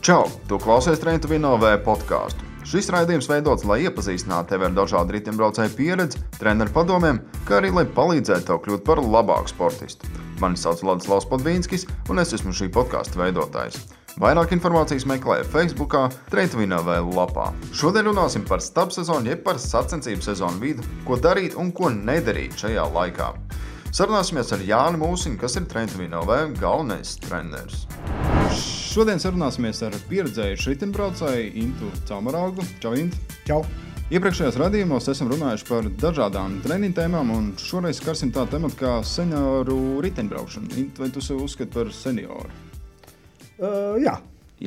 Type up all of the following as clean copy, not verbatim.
Čau! Tu klausies Train to Win OV podcastu. Šis raidījums veidots, lai iepazīstinātu tevi ar dažādu riteņbraucēju pieredzi, treneru padomiem, kā arī lai palīdzētu tev kļūt par labāku sportistu. Mani sauc Ladislavs Podvīnskis, un es esmu šī podkasta veidotājs. Vairāk informācijas meklē Facebookā, Train to Win OV lapā. Šodien runāsim par stabsezonu, jeb par sacensību sezonu vidu, ko darīt un ko nedarīt šajā laikā. Sarunāsimies ar Jāni Mūsiņu, kas ir Train to Win OV galvenais treneris. Šodien sarunāsimies ar pieredzējušu riteņbraucēju Intu Caumaraugu. Čau, Intu! Čau! Iepriekšējos radījumos esam runājuši par dažādām treniņu tēmām, un šoreiz skarsim tādu tematu kā senioru riteņbraukšanu. Intu, vai tu sev uzskati par senioru? Jā.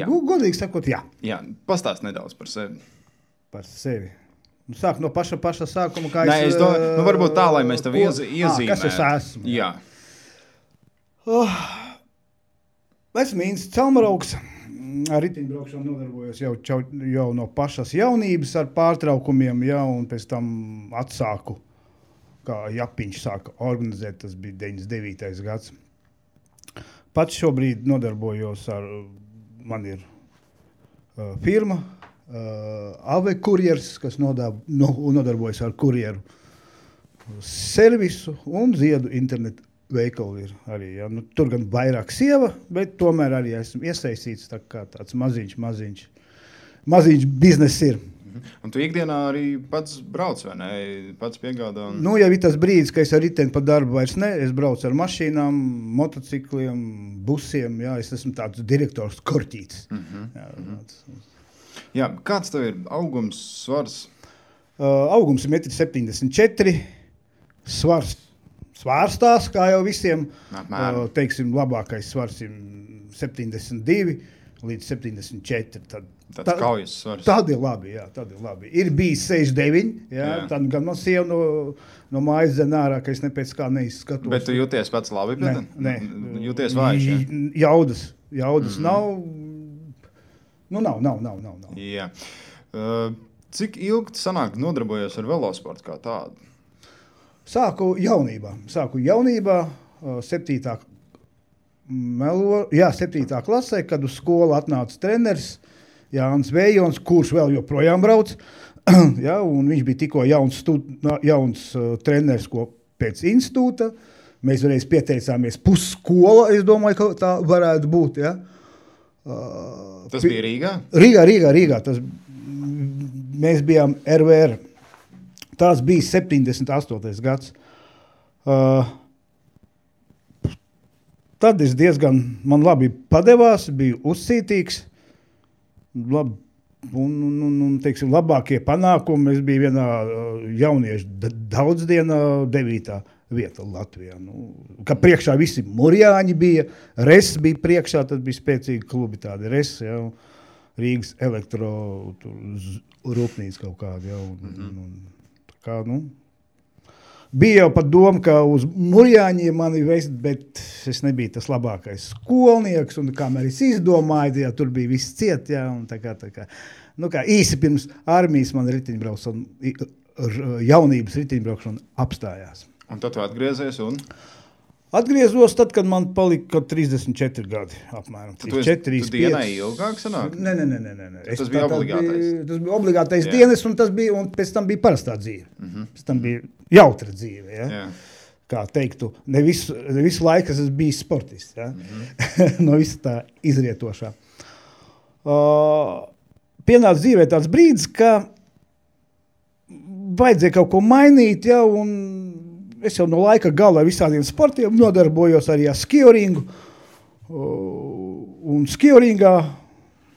Godīgi sakot, jā. Jā, pastāst nedaudz par sevi. Par sevi. Sāk no paša sākuma, kā es domāju, varbūt tā, lai mēs tev iezīmētu. Kas es esmu? Jā. Esmu Ints Caumaraugs. Ar riteņbraukšanu nodarbojos jau no pašas jaunības ar pārtraukumiem, un pēc tam atsāku, kā Japiņš sāka organizēt, tas bija 99. gads. Pats šobrīd nodarbojos man ir firma, AV kurjers, kas nodarbojas ar kurjeru servisu un ziedu internetu veikalu ir arī. Ja. Tur gan vairāk sieva, bet tomēr arī esmu iesaistīts tā kā tāds maziņš biznes ir. Un tu ikdienā arī pats brauc, vai ne? Pats piegādā? Jau ir tas brīdis, ka es ar riteni pa darbu vairs ne. Es braucu ar mašīnām, motocikliem, busiem. Jā, es esmu tāds direktors korķītis. Jā, kāds tev ir augums, svars? Augums ir 1,74 m. Svars svārstās, kā jau visiem. Teiksim, labākais svars ir 72 līdz 74. Tāds kaujas svars. Tad ir labi, jā, tad ir labi. Ir bijis 69, jā. Tad gan man sieva no mājas zem ārā, ka es ne pēc kā neizskatos. Bet tu jūties pats labi? Nē. Jūties vājš, jā? Jaudas nav. Nav. Jā. Cik ilgi sanāk nodarbojies ar velosportu kā tādu? Sāku jaunībā, 7. klasē, kad uz skolu atnāca treneris Jānis Vējons, kurš vēl joprojām brauc. Ja, un viņš bija tikko jauns treneris pēc institūta. Mēs reiz pieteicāmies pusskola, es domāju, ka tā varētu būt. Ja. Tas bija Rīgā? Rīgā. Mēs bijām RVR. Tas bija 78. gads. Tad es man labi padevās, biju uzcītīgs. Teiksim, labākie panākumi. Es biju vienā jauniešu daudzdienā 9. vieta Latvijā. Ka priekšā visi murjāņi bija, RES bija priekšā, tad bija spēcīgi klubi tādi RES, Rīgas elektro rūpnīca kaut kāda. Bija jau pat doma, ka uz murjāņiem mani vest, bet es nebiju tas labākais skolnieks, un kamēr es izdomāju, tur bija viss ciet, un tā kā īsi pirms armijas man jaunības riteņbraukšana apstājās. Un tad tu atgriezies un? Atgriezos tad, kad man palika 34 gadi apmēram. Tu dienai ilgāk sanāk? Nē. Tas bija obligātais? Tas bija obligātais dienas, un pēc tam bija parastā dzīve. Pēc tam bija jautra dzīve. Ja? Jā. Kā teiktu, ne visu laiku es biju sportists. Ja? No visa tā izrietošā. Pienāca dzīvē tāds brīdis, ka vajadzēja kaut ko mainīt, un es jau no laika gala visādiem sportiem nodarbojos arī ar skioringu. Un skioringā,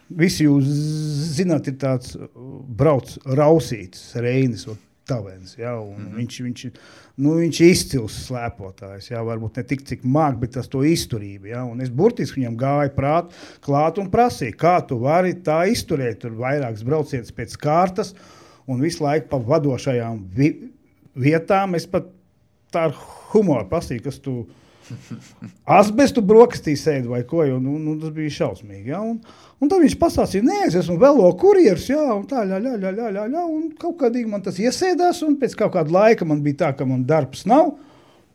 visi jūs zināt, ir tāds brauc Rausītis, Reinis, Tavens. Viņš ir izcils slēpotājs. Varbūt ne tik, cik māk, bet tas to izturība. Un es burtiski viņam gāju klāt un prasīju, kā tu vari tā izturēt. Tur vairākas braucienas pēc kārtas un visu laiku pa vadošajām vietām. Es pat tā ar humoru prasīju, kas tu asbestu brokastī sēdi vai ko, tas bija šausmīgi. Un tad viņš pastāstīja, nē, es esmu velo kurjers, un tā, un kaut kādīgi man tas iesēdās, un pēc kaut kāda laika man bija tā, ka man darbs nav,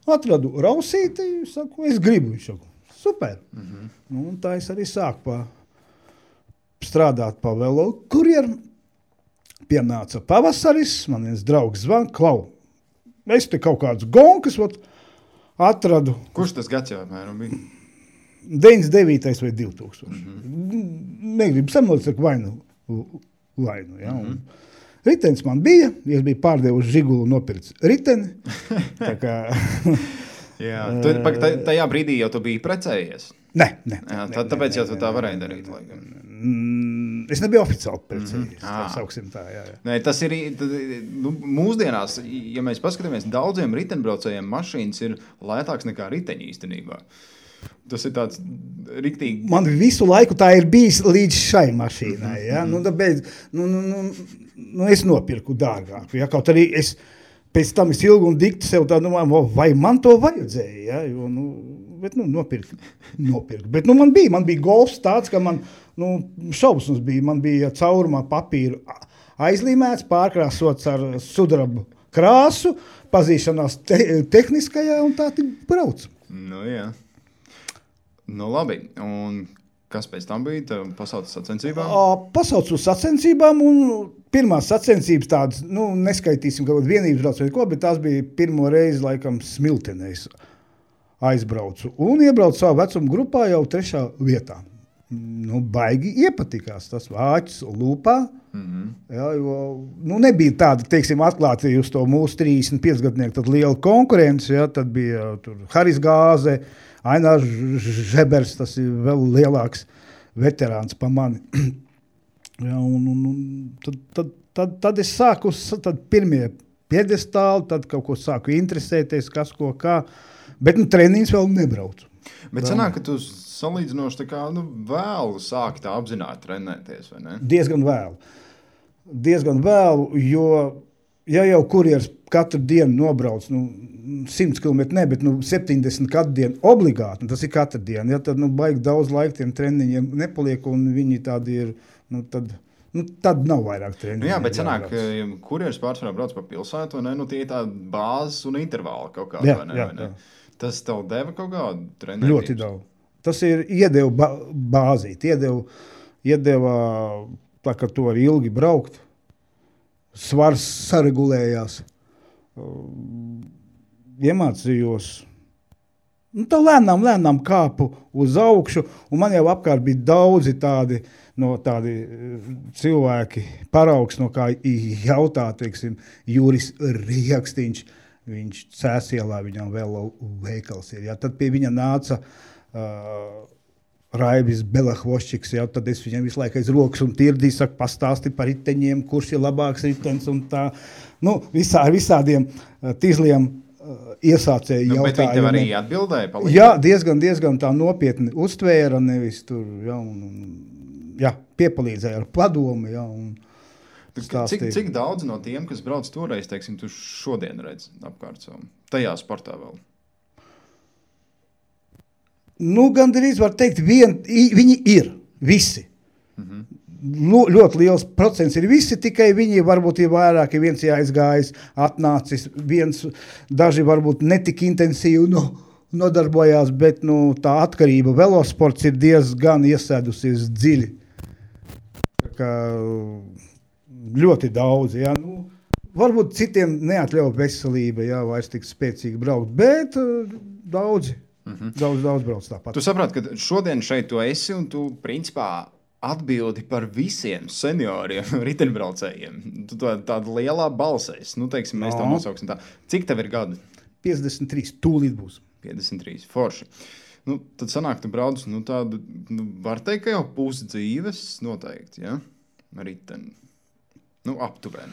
atradu Rausīti, saku, es gribu, viņš saku, super. Un tā es arī sāku strādāt pa velo kurjeru. Pienāca pavasaris, man viens draugs zvan, Klau, es te kaut kāds gonkas atradu. Kurš tas gads jau apmēram bija? 99. vai 2000. Negribu samolīt, saka vainu. Ja? Ritenis man bija, es biju pārdevuši Žigulu nopircis riteni. Tā kā... Jā, tajā brīdī jau tu biji precējies? Nē. Tāpēc jau tu tā varēji darīt. Es nebiju oficiāli precējies, tā sauksim tā, jā. Nē, tas ir, mūsdienās, ja mēs paskatāmies, daudziem ritenbraucējiem mašīnas ir lētāks nekā riteņi īstenībā. Tas ir tāds riktīgi... Man visu laiku tā ir bijis līdz šai mašīnai, ja? Tāpēc, es nopirku dārgāku, ja? Kaut arī pēc tam es ilgi un dikti sev tā domāju, vai man to vajadzēja, ja? Jo, bet nopirku. Bet man bija golfs tāds, ka man šausmas bija. Man bija caurumā papīru aizlīmēts, pārkrāsots ar sudrabu krāsu, pazīšanās tehniskajā un tā tik brauc. Jā. Labi. Un kas pēc tam bija? Pasauc sacensībām? Pasauc uz sacensībām un pirmās sacensības tādas, neskaitīsim kaut kādu vienības brauc vai ko, bet tās bija pirmo reizi laikam Smiltenēs aizbraucu un iebraucu savu vecumu grupā jau 3. vietā. Baigi iepatikās tas vāķis lūpā. Jā, jo, nebija tāda, teiksim, atklāti uz to mūsu 35 gadnieku, tad liela konkurence, jā, tad bija tur Haris Gāze, Ainārs Žebers, tas ir vēl lielāks veterāns pa mani. Jā, un tad es sāku, tad pirmie piedestāli, tad kaut ko sāku interesēties, kas ko kā, bet treniņus vēl nebraucu. Bet sanāk, ka tu salīdzinoši tā kā vēlu sāki tā apzināti trenēties, vai ne? Diezgan vēlu, jo ja jau kurjers katru dienu nobrauc, 100 km ne, bet 70 katru dienu obligāti, tas ir katru dienu, ja, tad baigi daudz laika tiem treniņiem nepaliek, un viņi tādi ir, tad nav vairāk treniņu. Jā, bet sanāk, kurjers pārsvarā brauc pa pilsētu, vai ne? Tie ir tādi bāzes un intervāli kaut kādi, vai ne? Jā. Tas tev deva kaut kādu trenētības? Ļoti daudz. Tas ir iedeva bāzīt, iedeva tā, ka tu vari ilgi braukt, svars saregulējās, iemācījos. Tā lēnām kāpu uz augšu, un man jau apkārt bija daudzi tādi cilvēki paraugs, no kā jautā, teiksim, Juris Riekstiņš, viņš Cēsielā, viņam vēl veikals ir. Ja? Tad pie viņa nāca Raivis Belahvoščiks, ja? Tad es viņam visu laiku aiz rokas un tirdīju, saku, pastāsti par riteņiem, kurš ir labāks ritens un tā. Visādiem tīzliem iesācēju jautājumiem. Bet viņi tev arī atbildēja? Palīdēja? Jā, diezgan tā nopietni uztvēra, nevis tur, piepalīdzēja ar padomu, un Cik daudz no tiem, kas brauc toreiz, teiksim, tu šodien redz apkārt savu? Tajā sportā vēl? Gandrīz var teikt, viņi ir visi. Ļoti liels procents ir visi, tikai viņi varbūt ir vairāk, viens jāizgājis, atnācis, daži varbūt netik intensīvi nodarbojās, bet tā atkarība velosports ir diezgan iesēdusies dziļi. Tā kā ļoti daudz, jā. Varbūt citiem neatļauj veselība, jā, vairs tik spēcīgi braukt, bet daudzi, daudz brauc tāpat. Tu saproti, ka šodien šeit tu esi un tu principā atbildi par visiem senioriem riteņbraucējiem. Tu tāda lielā balsēs, teiksim, mēs tā nosauksim tā. Cik tev ir gadu? 53, tūlīt būs. 53, forši. Tad sanāk, tu brauc, tādu, var teikt, ka jau pusi dzīves noteikti, ja? Riteni. Aptuveni.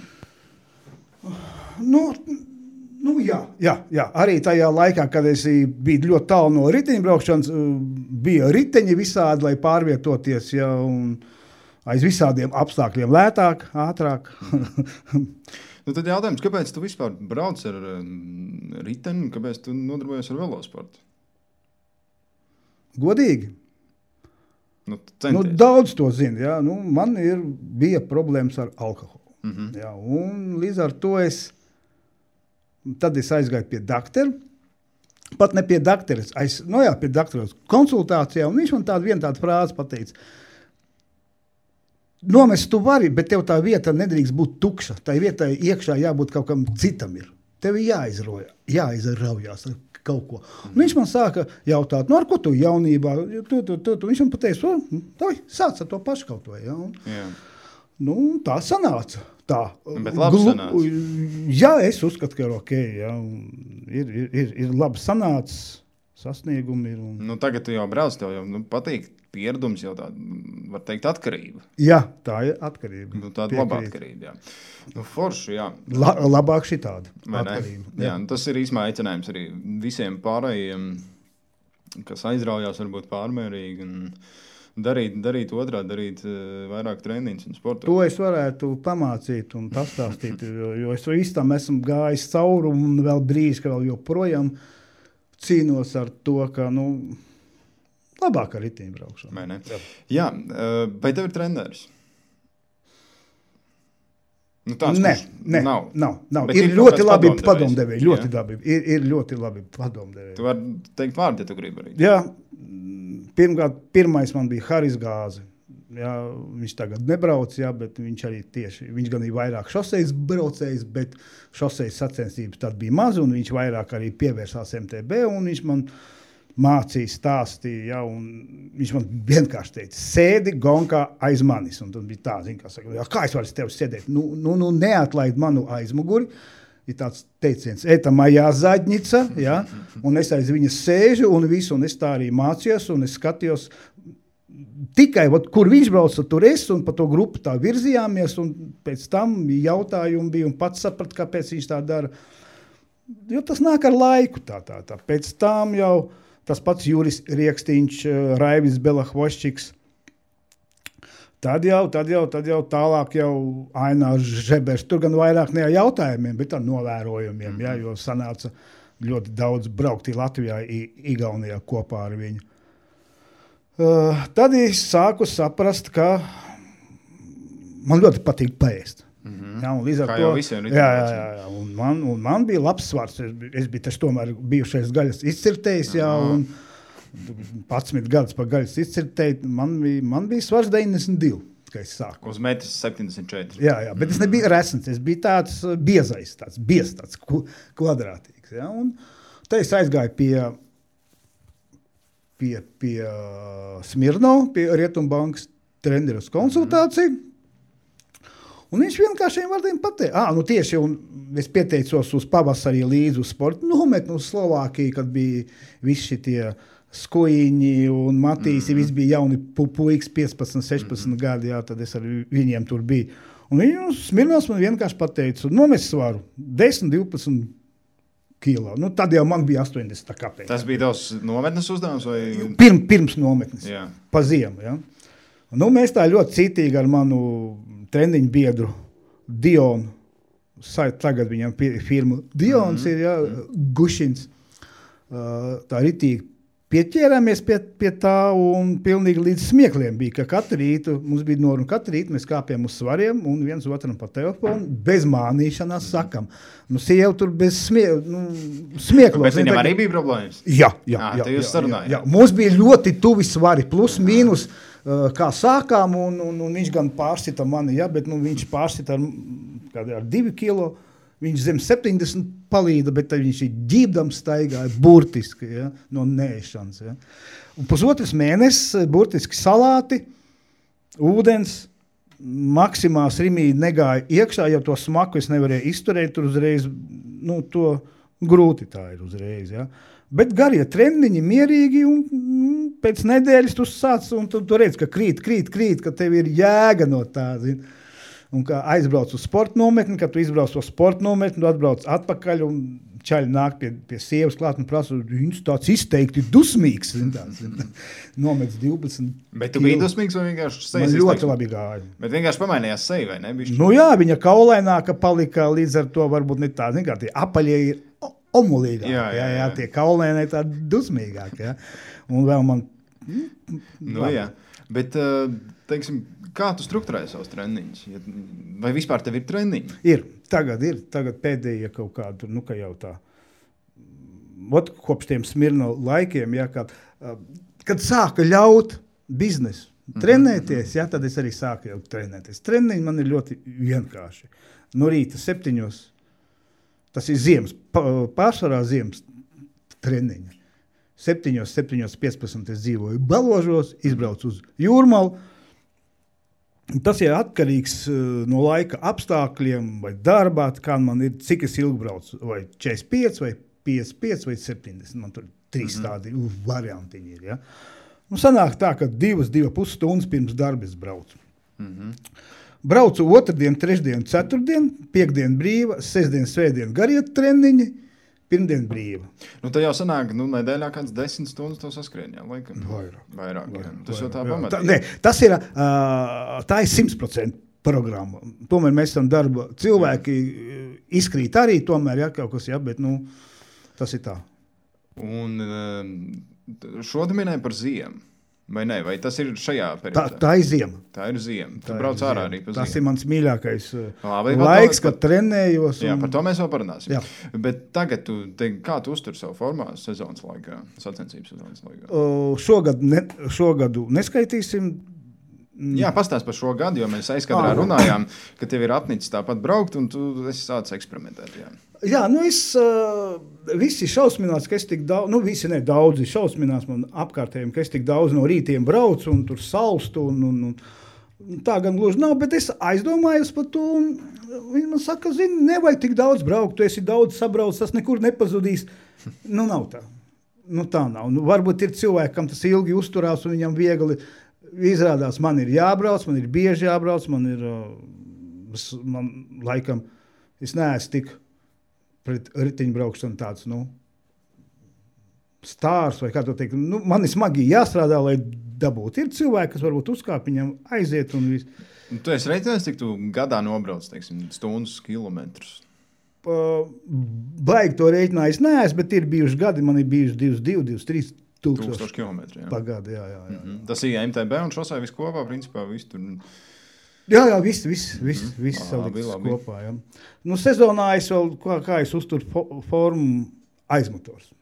Jā. Arī tajā laikā, kad es biju ļoti tālu no riteņbraukšanas, bija riteņi visādi, lai pārvietoties, ja, un aiz visādiem apstākļiem lētāk, ātrāk. Tad jautājums, kāpēc tu vispār brauc ar riteni, kāpēc tu nodarbojies ar velosportu? Godīgi? Daudz to zina, jā. Man bija problēmas ar alkoholu. Jā, un līdz ar to tad es aizgāju pie doktora, pat ne pie doktora, pie doktora konsultācijā, un viņš man tādu frāzi pateica. nomest tu vari, bet tev tā vieta nedrīkst būt tukša. Tā vietai iekšā jābūt kaut kam citam ir. Tev ir jāizraujās ar kaut ko. Un viņš man sāka jautāt, ar ko tu jaunībā? Viņš man pateica, sāc ar to pašu kaut ko. Ja? Tā sanāca. Tā. Bet labi sanāca. Jā, es uzskatu, ka ir ok. Ja? Ir labi sanācis, sasniegumi ir. Tagad tu jau brauc, tev jau patīk pieredums, jau tāda, var teikt, atkarība. Jā, tā ir atkarība. Tāda laba atkarība, jā. Forši, jā. Labāk šitāda atkarība. Jā, tas ir īsmā aicinājums arī visiem pārējiem, kas aizraujās varbūt pārmērīgi un darīt otrādi, darīt vairāk treniņus un sportot. To es varētu pamācīt un pastāstīt, jo es visu tam esmu gājis cauri un vēl brīz, ka vēl joprojām cīnos ar to, ka, labāk ar riteņbraukšanu. Vai ne? Jā, vai tev ir treneris? Nav. Ir ļoti labi padomdevēji. Ir ļoti labi padomdevēji. Tu vari teikt vārdu, ja tu gribi arī. Jā, pirmais man bija Haris Gāze. Jā, viņš tagad nebrauc, bet viņš arī viņš gan ir vairāk šosejas braucējs, bet šosejas sacensības tad bija maz, un viņš vairāk arī pievērsās MTB, un viņš man mācīja, stāstīja, un viņš man vienkārši teica, sēdi gonkā aiz manis, un tad bija tā, kā es varu tev sēdēt, neatlaid manu aizmuguri, ir tāds teiciens, eta majā zaļņica, ja? Un es aiz viņas sēžu, un es tā arī mācījos, un es skatījos, tikai, kur viņš brauca, tur es, un pa to grupu tā virzījāmies, un pēc tam jautājumi bija, un pats saprat, kāpēc viņš tā dara, jo tas nāk ar laiku tā. Pēc tam jau tas pats Juris Riekstīņš, Raivis Belahvoščiks. Tad jau tālāk jau Ainārs Žebers. Tur gan vairāk ne ar jautājumiem, bet ar novērojumiem, jo sanāca ļoti daudz braukt Latvijā, Igaunijā kopā ar viņu. Tad es sāku saprast, ka man ļoti patīk paēst. Jā, un līdz ar kā to, jau visiem jā, un man bija labs svars. Es biju taču tomēr bijušais gaļas izcirtējs, un 11 gadus par gaļas izcirtēju. Man bija svars 92, kad es sāku. Uz metrs 74. Jā, bet es nebiju resns, es biju tāds biezais, tāds kvadrātīgs. Jā, un te es aizgāju pie Smirnova, pie Rietumbankas treneru konsultāciju. Un viņš vienkāršiem vārdiem pateica, tieši, un es pieteicos uz pavasarī līdzi uz sportu nometni uz Slovākiju, kad bija visi šitie Skujiņi un Matīsi, visi bija jauni puikas, 15, 16 gadi, tad es ar viņiem tur biju. Un Smirnovs man vienkārši pateica, nomest svaru 10, 12 kilo. Tad jau man bija 80, kāpēc. Tas bija tavs nometnes uzdevums? Vai? Pirms nometnes, pa ziemu. Ja? Mēs tā ļoti cītīgi ar manu treniņu biedru Dionu, tagad viņam firma Dions ir, Gušins, tā ritīgi pieķērāmies pie tā un pilnīgi līdz smiekliem bija, ka katru rītu, mums bija noruna, katru rītu mēs kāpjam uz svariem un viens otram pa telefonu, bez mānīšanās sakam. Sieva tur bez smieklos. Bet viņam arī bija problēmas? Jā. Jūs sarunājāt? Jā. Mums bija ļoti tuvi svari, plus, mīnus, kā sākām, un viņš gan pārsita mani, bet viņš pārsita ar 2 kilo, viņš zem 70 palīda, bet viņš ir ģībdams staigāja burtiski, no neēšanas. Un pusotras mēnesis burtiski salāti, ūdens, maksimās rimīdi negāja iekšā, jo to smaku es nevarēju izturēt, tur uzreiz, to grūti tā ir uzreiz, Bet garie treniņi mierīgi, un pēc nedēļas tu sāc, un tu redz, ka krīt, ka tev ir jēga no tā, Un kā aizbrauc uz sporta nometni, kad tu izbrauc uz sporta nometni, tu atbrauc atpakaļ, un čaļi nāk pie sievas klāt un prasa, viņš tāds izteikti dusmīgs, nomets 12. Bet tu biji dusmīgs vai vienkārši sejas? Man ļoti labi gāja. Bet vienkārši pamainījās seja, vai ne? Viņa kaulaināka palika, līdz ar to varbūt ne tā, kā tie apaļie ir omulīgāk, jā, tie kaulēnē tā dusmīgāk, Un vēl man... Bet, teiksim, kā tu strukturēji savus treniņus? Vai vispār tev ir treniņi? Tagad pēdējie kaut kādu, ka jau tā, kopš tiem Smirnova laikiem, kad sāka ļaut biznesu, trenēties, jā, tad es arī sāku jau trenēties. Treniņi man ir ļoti vienkārši. No rīta 7, tas ir ziemas, pārsvarā ziemas treniņi. 7:15 es dzīvoju Baložos, izbraucu uz Jūrmalu. Tas ir atkarīgs no laika apstākļiem vai darbā, kā man ir, cik es ilgi braucu, vai 45, vai 55, vai 70. Man tur 3 tādi variantiņi ir, ja. Nu, sanāk tā, ka 2,5 stundas pirms darba es braucu. Braucu otrdien, trešdien, ceturtdien, piekdien brīva, sestdien, svētdien gariet treniņi, pirmdien brīva. Nu, tā jau sanāk, nedēļā kāds 10 stundas to saskrien, jā, laikam. Vairāk, jā. Tas jau tā pamatīgi. Tas ir, tā ir 100% programma. Tomēr mēs esam darba cilvēki, izkrīt arī tomēr, jā, kaut kas, jā, bet, tas ir tā. Un šo tu minēji par ziemu, vai ne? Vai tas ir šajā periodā? Tā ir ziema. Tā ir ziema. Tu brauc ārā arī pa ziemu. Tas ir mans mīļākais laiks, kad trenējos. Jā, par to mēs vēl parunāsim. Jā. Bet tagad, kā tu uztur savu formā sezonas laikā, sacensības sezonas laikā? Šogadu neskaitīsim. Jā, pastāst par šo gadu, jo mēs aizkadrā runājām, ka tev ir apnicis tāpat braukt, un tu esi sācis eksperimentēt. Jā, visi šausminās, ka es tik daudz, visi ne daudzi šausminās man apkārtējiem, ka es tik daudz no rītiem braucu un tur salstu, un tā gan gluži nav, bet es aizdomājos par to, un viņi man saka, nevajag tik daudz braukt, tu esi daudz sabrauc, tas nekur nepazudīs. Nav tā. Tā nav. Varbūt ir cilvēki, kam tas ilgi uzturās, un viņam viegli izrādās, man ir jābrauc, man ir bieži jābrauc, man laikam, es neesmu tik pret ritiņbraukšanu tāds, stārs vai kā to teikt. Man ir smagi jāstrādā, lai dabūtu. Ir cilvēki, kas varbūt uzkāp, viņam aiziet un viss. Tu esi reiķinājis, cik tu gadā nobrauc, teiksim, stundas, kilometrus? Baigi to reiķinājis neesmu, bet ir bijuši gadi, man ir bijuši 22-23 tūkstoši kilometri, jā. Pagadu, jā. Tas ir MTB un šosai viss kopā, principā, viss tur... Jā, viss salikts kopā, jā. Sezonā es vēl, kā es uzturu formu, aizmotors.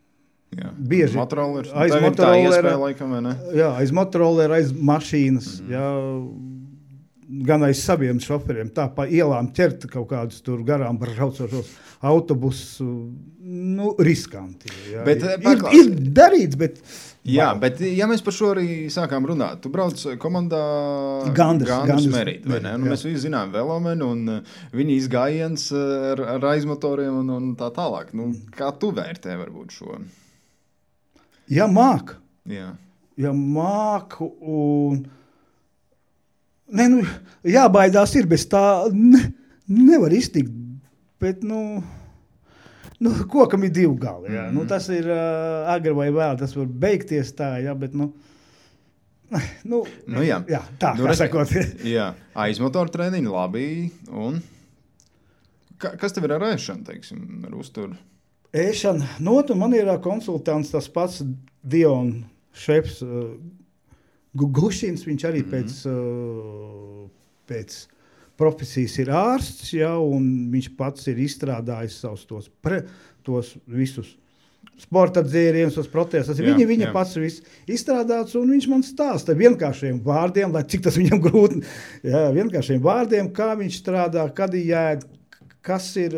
Jā. Bieži. Motorolers. Aiz motorolera. Tā iespēja, laikam, vai ne? Jā, aiz motorolera, aiz mašīnas, jā. Gan aiz saviem šoferiem, tā pa ielām ķert kaut kādus tur garām braucošos autobusus, riskanti. Jā. Bet, ir darīts, bet... Jā, bet ja mēs par šo arī sākām runāt, tu brauc komandā Gandus Merīt, vai ne? Mēs visi zinām Velomenu un viņa izgājiens ar aizmotoriem un tā tālāk. Kā tu vērtē varbūt šo? Ja māk. Jā. Ja māk un... jābaidās ir, bez tā nevar iztikt, bet, kokam ir 2 gali, jā. Tas ir agri vai vēl, tas var beigties tā, jā, bet, jā, tā, kā sakot. Jā, aizmotoru treniņi labi, un kas tev ir ar ēšanu, teiksim, ar uzturu? Ēšana, man ir konsultants tas pats Dion šefs, Gušins, viņš arī pēc profesijas ir ārsts, jā, un viņš pats ir izstrādājis savus tos visus sporta dzērienus, tos protēzes. Viņa pats viss izstrādāts, un viņš man stāsta vienkāršiem vārdiem, lai cik tas viņam grūti, jā, vienkāršiem vārdiem, kā viņš strādā, kad ir jāēd, kas ir...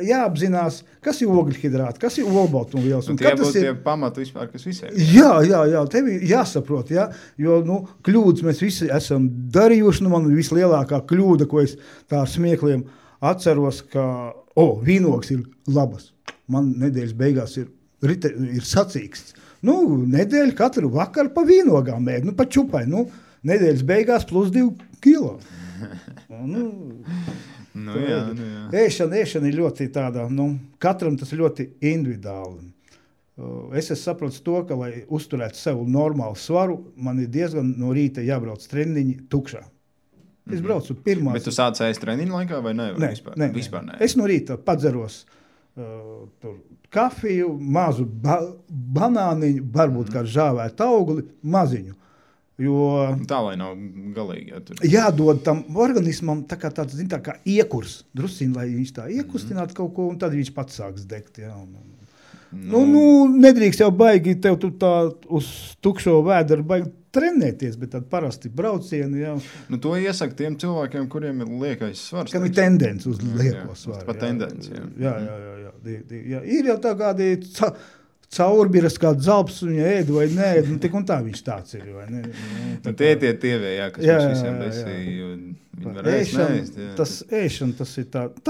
jāapzinās, kas ir ogļhidrāti, kas ir olbaltumvielas. Un tie būtu tie pamati vispār, kas visiem. Jā, tev ir jāsaprot, jā, jo, kļūdas mēs visi esam darījuši, man vislielākā kļūda, ko es tā ar smiekliem atceros, ka, vīnogs ir labas. Man nedēļas beigās ir sacīksts. Nedēļa katru vakaru pa vīnogām ēd, pa čupai, nedēļas beigās plus 2 kilo. Jā. Ēšana ir ļoti tāda, katram tas ļoti individuāli. Es saprotu to, ka, lai uzturētu sev normālu svaru, man ir diezgan no rīta jābrauc treniņi tukšā. Es braucu pirmās... Bet tu sāc ēst treniņu laikā vai ne? Vispār ne. Es no rīta padzeros kafiju, mazu banāniņu, varbūt kā žāvētu augli, maziņu. Jo tā, lai nav galīgi. Jādod tam organismam tā kā tāds, tā kā iekurs, drusciņ, lai viņš tā iekustinātu kaut ko, un tad viņš pats sāks degt. Jā, Nedrīkst jau baigi, tev tu tā uz tukšo vēderu baigi trenēties, bet tad parasti braucieni jau. To iesaka tiem cilvēkiem, kuriem ir liekais svars. Kam ir tendence uz lieko svaru. Pat tendence, jā. Ir jau tā kādi caurbiras kā dzalps, viņa ēd vai neēd, tik un tā viņš tāds ir, vai ne? Tievē, kas mums visiem besīja, viņi var ēst. Ēšana,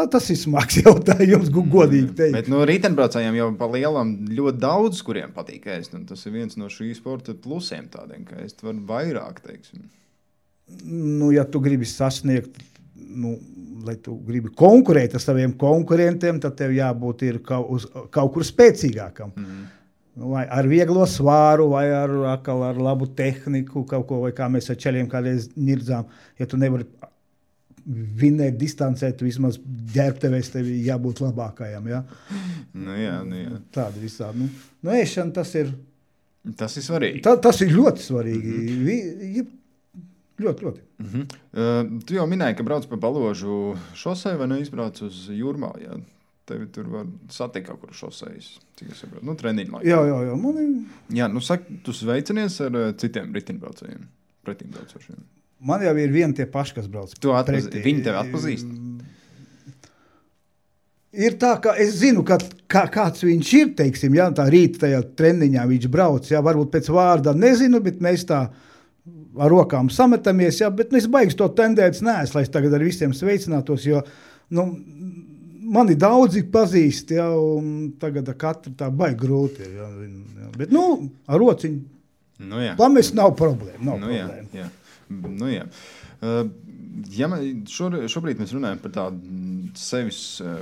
tas ir smags jautājums, godīgi teikt. Bet riteņbraucējiem jau pa lielam ļoti daudz, kuriem patīk ēst, un tas ir viens no šī sporta plusiem tādiem, ka ēst var vairāk, teiksim. Ja tu gribi sasniegt, lai tu gribi konkurēt ar saviem konkurentiem, tad tev jābūt ir kaut kur spēcīgākam. Vai ar vieglo svāru, vai ar labu tehniku, kaut ko, vai kā mēs ar čeļiem kādreiz nirdzām. Ja tu nevari vinēt distancē, tu vismaz ģērbtevēs tevi jābūt labākajam. Ja? Jā. Tāda visādi. Ēšana tas ir... Tas ir svarīgi. Tas ir ļoti svarīgi. Ļoti. Tu jau minēji, ka brauc pa Baložu šosei vai neizbrauc uz Jūrmālu, jā? Tevi tur var satikt kaut kur šosejas, cik es saprotu. Treniņu laikā. Jā. Jā, saki, tu sveicinies ar citiem riteņbraucējiem, pretimbraucošiem. Man jau ir vieni tie paši, kas brauc. Viņi tevi atpazīst? Ir tā, ka es zinu, kāds viņš ir, teiksim, ja, tā rīta tajā treniņā viņš brauc, ja, varbūt pēc vārdā nezinu, bet mēs tā ar rokām sametamies, ja, bet es baigs to tendēts neesmu, lai es tagad ar visiem sveicinātos, jo, mani daudzi pazīst, ja, un tagad ar katru tā baigi grūti ir, ja, bet, ar rociņu pamest nav problēma, Jā. Šobrīd mēs runājam par tādu sevis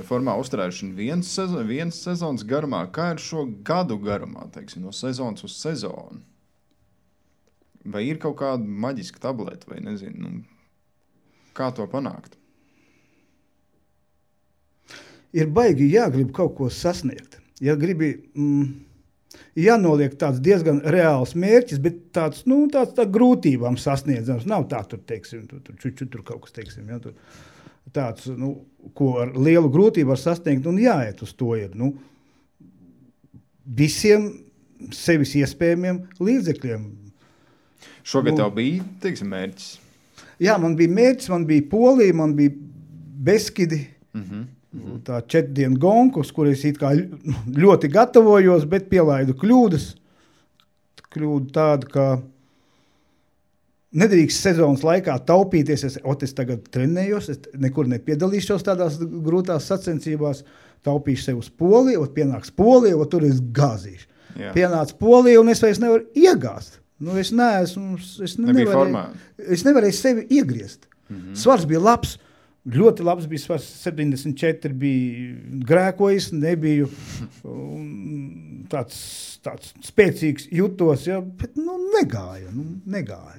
formā uzturēšanu viens sezonas garumā. Kā ir šo gadu garumā, teiksim, no sezonas uz sezonu? Vai ir kaut kāda maģiska tableta, vai nezinu, kā to panākt? Ir baigi jāgrib kaut ko sasniegt. Ja gribi, jānoliek tāds diezgan reāls mērķis, bet tāds grūtībām sasniedzams. Nav tā, teiksim, tur kaut kas, teiksim, ja, tur tāds, ko ar lielu grūtību var sasniegt, un jāiet uz to ir, visiem sevis iespējamiem līdzekļiem. Šogad tev bija, teiksim, mērķis? Jā, man bija mērķis, man bija Polija, man bija Beskidi, tā 4 dienu gonku, uz kur es it kā ļoti gatavojos, bet pielaidu kļūdas. Kļūda tāda, ka nedrīkst sezonas laikā taupīties, es tagad trenējos, es nekur nepiedalīšos tādās grūtās sacensībās, taupīšu sev uz Poliju, pienāks Polija, tur es gāzīšu. Jā. Pienāca Polija, un es vairs nevaru iegāzt. Es nevarēju sevi iegriezt. Svars bija labs, ļoti labs bija svars, 74 bija grēkojis, nebiju tāds spēcīgs jutos, ja, bet negāja.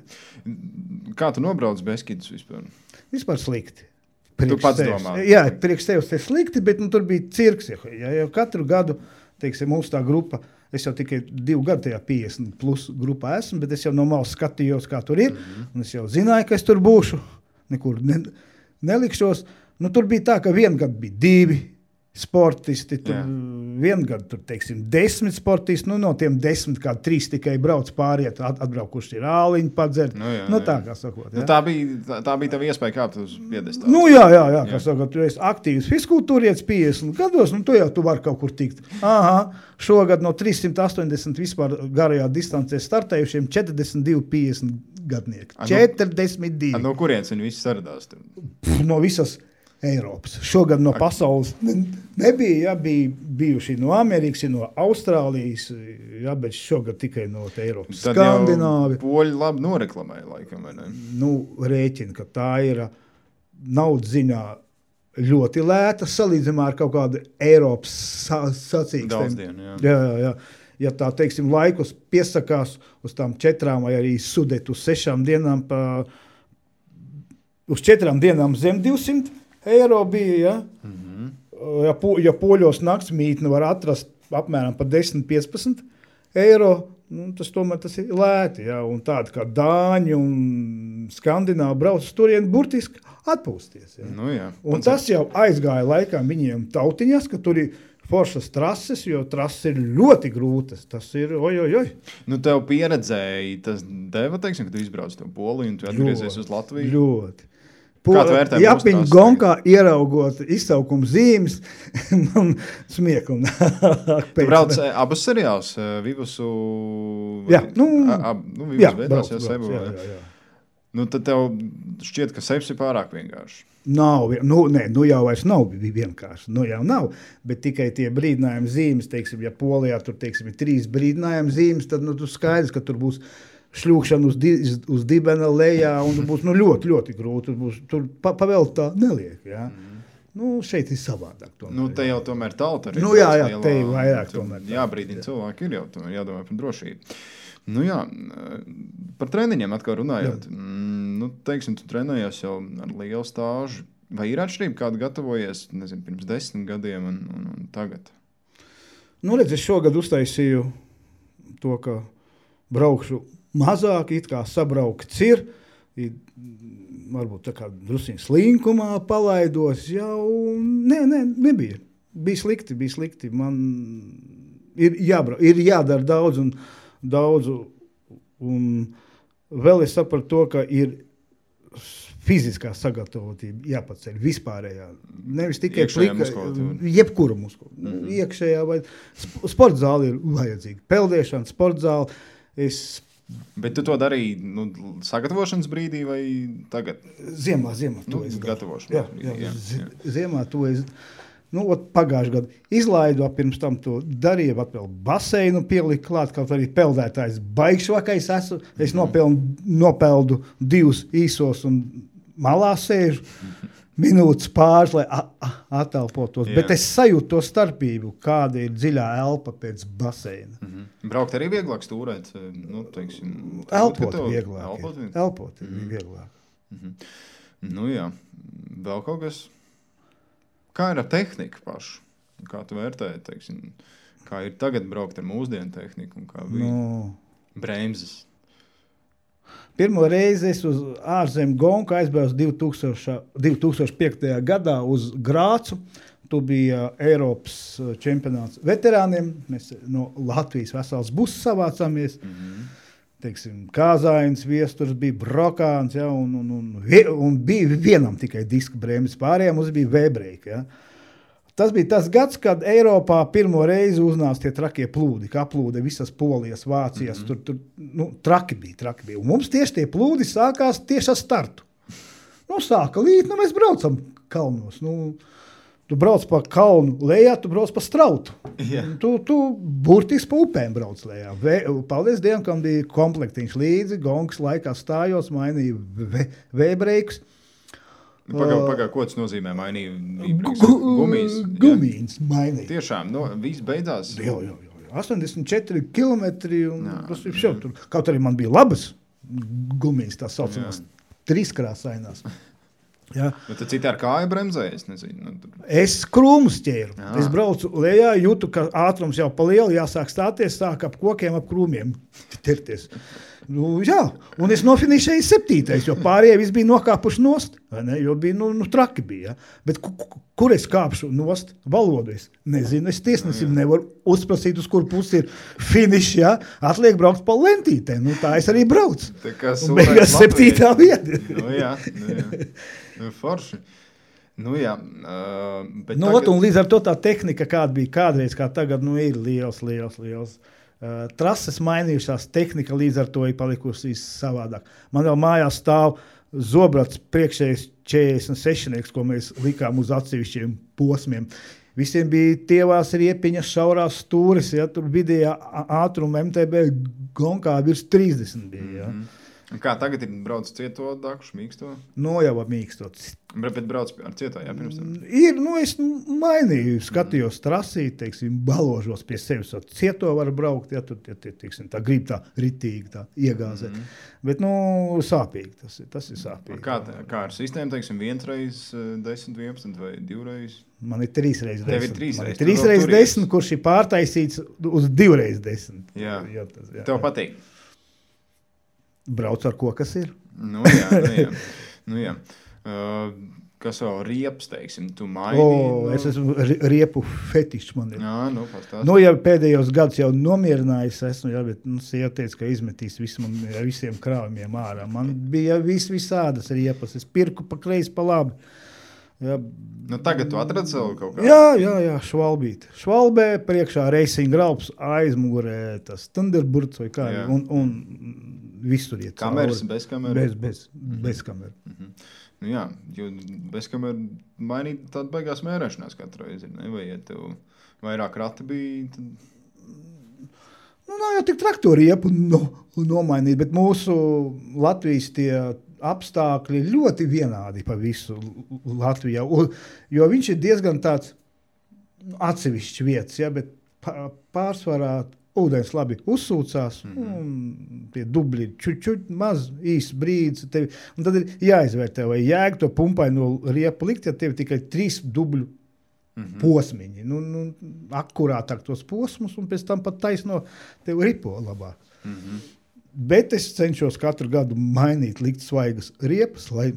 Kā tu nobrauc Beskidus vispār? Vispār slikti. Tu pats domā? Jā, priekš tevis te slikti, bet tur bija cirks. Ja katru gadu, teiksim, mums tā grupa, es jau tikai 2 gadu tajā 50 plus grupā esmu, bet es jau no malas skatījos, kā tur ir, un es jau zināju, ka es tur būšu, nekur nelikšos. Tur bija tā, ka vienu gadu bija 2 sportisti, vienu gadu tur, teiksim, 10 sportisti, no tiem 10 kā 3 tikai brauc pāriet, atbraukuši ir āliņu padzert, tā kā sakot. Ja? Tā bija tava iespēja kāpt uz piedestālu. Jā, kā sakot, tu esi aktīvs fiskultūrietis 50 gados, tu vari kaut kur tikt. Šogad no 380 vispār garajā distancē startējušiem 42-50 gadnieki. 42. No kurienes viņi visi saradās? No visas Eiropas. Šogad no pasaules nebija, bija bijuši no Amerikas, no Austrālijas, bet šogad tikai no Eiropas. Tad Skandināvi. Jau poļi labi noreklamēja laikam, vai ne? Rēķina, ka tā ir naudas ziņā ļoti lēta, salīdzinājumā ar kaut kādu Eiropas sacīkstiem. Daudzdienu, jā. Jā. Ja tā, teiksim, laikus piesakās uz tām 4 vai arī sudet uz 6 dienām, uz 4 dienām zem 200 eiro bija, ja? Ja poļos naktsmītni var atrast apmēram pa 10-15 eiro, tas ir lēti, ja? Un tādi kā Dāņi un Skandināvi brauc turien burtiski atpūsties. Ja? Jā. Un tas jau aizgāja laikā viņiem tautiņas, ka tur ir foršas trases, jo trases ir ļoti grūtas. Tas ir, oj. Nu, tev pieredzēji, tas deva, teiksim, ka tu izbrauc to Poliju un tu atgriezies uz Latviju? Ļoti. Kā tu vērtē mūsu Japiņu gonkā ieraugot izsaukuma zīmes, man smiekuma. Tu brauc abus seriālus, Vivusu... Jā, Vivus Vēdās, Sebu. Jā. Nu, tad tev šķiet, ka Sebs ir pārāk vienkārši. Nav, jau vairs nav vienkārši, jau nav, bet tikai tie brīdinājumi zīmes, teiksim, ja Polijā tur, teiksim, ir 3 brīdinājumi zīmes, tad, tu skaidrs, ka tur būs šļūkšana uz dibena lejā, un būs ļoti, ļoti grūti. Tur pavēlt tā neliek. Ja? Šeit ir savādāk. Tomēr, te jau tomēr tauta arī. Te ir vairāk tomēr. Jābrīdina cilvēki ir jau tomēr jādomā par drošību. Par treniņiem atkal runājot. Teiksim, tu trenējies jau ar lielu stāžu. Vai ir atšķirība, kādu gatavojies, nezinu, pirms 10 gadiem un tagad? Es šogad uztaisīju to, ka braukšu mazāk, it kā sabraukts ir, varbūt tā kā drusiņ slinkumā palaidos, jau nebija. Bija slikti. Man ir jādara daudz, un vēl es sapratu to, ka ir fiziskā sagatavotība jāpaceļ vispārējā. Nevis tikai jebkura muskula. Iekšējā vai sporta zāle ir vajadzīga. Peldēšana, sporta zāle. Bet tu to darīji sagatavošanas brīdī vai tagad? Ziemā to es gatavošanas brīdī. Jā. Ziemā to es pagājušajā gadā izlaidu, pirms tam to darīju, vēl baseinu pieliku klāt, kaut arī peldētājs baigšvakais esmu. Es nopeldu 2 īsos un malā sēžu. Minūtes pāris, lai attelpotos. Bet es sajūtu to starpību, kāda ir dziļā elpa pēc baseina. Braukt arī vieglāk stūrēt? Elpot vieglāk. Elpot ir vieglāk. Jā. Vēl kaut kas? Kā ir ar tehniku pašu? Kā tu vērtēji, teiksim? Kā ir tagad braukt ar mūsdienu tehniku? Un kā bija bremzes? Pirmo reizi es uz ārzemju gonku aizbraucu 2005. gadā uz Grācu. Tu bija Eiropas čempionāts veterāniem. Mēs no Latvijas vesels buss savācāmies. Teiksim, Kāzājums, Viesturs, bija Brokāns, ja, un bija vienam tikai diska bremzes, pārējām mums bija V-break. Ja. Tas bija tas gads, kad Eiropā pirmo reizi uznāca tie trakie plūdi, kā aplūde visas Polijas, Vācijas, tur traki bija. Un mums tieši tie plūdi sākās tieši ar startu. Sāka līt, mēs braucam kalnos. Tu brauc pa kalnu lejā, tu brauc pa strautu. Yeah. Tu burtiski pa upēm brauc lejā. Paldies Dievam, kam bija komplektiņš līdzi, gongs laikā stājos, mainīja V-breikus. Pagā, ko tas nozīmē? Mainīja gumijas mainīja. Tiešām, viss beidzās? Jā. 84 kilometri, un tas ir šeit. Kaut arī man bija labas gumijas, tā saucamās, 3-krāsainās. Ja. Bet tu citi ar kāju bremzēji, es nezinu. Es krūmus ķēru. Es braucu lejā, jūtu, ka ātrums jau pa lielu, jāsāk stāties, sāk ap kokiem, ap krūmiem tirties. Un es nofinišēju 7. jo pārējie visi bija nokāpuši nost, jo bija, traki bija. Ja? Bet kur es kāpšu nost? Valodu es nezinu, es tiesnesim nevaru uzprasīt, uz kur pusi ir finišs, ja? Atliek braukt pa lentītēm, tā es arī braucu. Un beigās 7. vieta. Jā. Forši. Bet un līdz ar to tā tehnika, kāda bija kādreiz, kā tagad, ir liels. Trases mainījušās, tehnika līdz ar to ir palikusi savādāk. Man vēl mājās stāv zobrats priekšējais 46, ko mēs likām uz atsevišķiem posmiem. Visiem bija tievās riepiņas, šaurās stūris, ja, tur vidējā ātruma MTB gonkā virs 30 bija. Ja. Kā tagad ir brauc cieto dakšu, mīksto? Jau mīkstot. Bet brauc ar cieto, jā, pirms tam? Ir, es mainīju, skatījos trasī, teiksim, baložos pie sevis. Cieto var braukt, ja tur, teiksim, tā grib tā ritīgi, tā iegāzē. Bet, sāpīgi, tas ir sāpīgi. Kā ar sistēmu, teiksim, 1x10, 11 vai 2x? Man ir 3x10. Tev ir 3x10. Man ir 3x10, kurš ir pārtaisīts uz 2x10. Jā. Tev patīk? Brauc ar ko, kas ir. Jā. Kas vēl riepas, teiksim, tu mainīji? Es esmu riepu fetišs man ir. Jā, pastāst. Ja pēdējos gadus jau nomierinājis esmu, bet sieva teica, ka izmetīs visiem krāvumiem ārā. Man bija visādas riepas. Es pirku pa kreisi, pa labi. Jā. Tagad tu atradi sev kaut kā? Jā, švalbīt. Švalbē, priekšā racing graups, aizmugurē tas Thunderbirds vai kā. Un visur iet. Kameras, bez kameras? Bez kameras. Jā, jo bez kameras mainīt tādu baigās mērēšanās katru reizi, ne? Vai ja tev vairāk rati bija? Tad... Nav jau tik traktori riepu nomainīt, bet mūsu Latvijas tie apstākļi ļoti vienādi pa visu Latvijā, jo viņš ir diezgan tāds atsevišķs vietas, bet pārsvarā ūdens labi uzsūcās, un tie dubļi čuķuķi maz, īs brīdis, un tad ir jāizvērtē, vai jēga to pumpaino riepu likt, ja tev tikai 3 dubļu posmiņi, akurātāk tos posmus, un pēc tam pat taisno tev ripo labāk. Bet es cenšos katru gadu mainīt, likt svaigas riepas, lai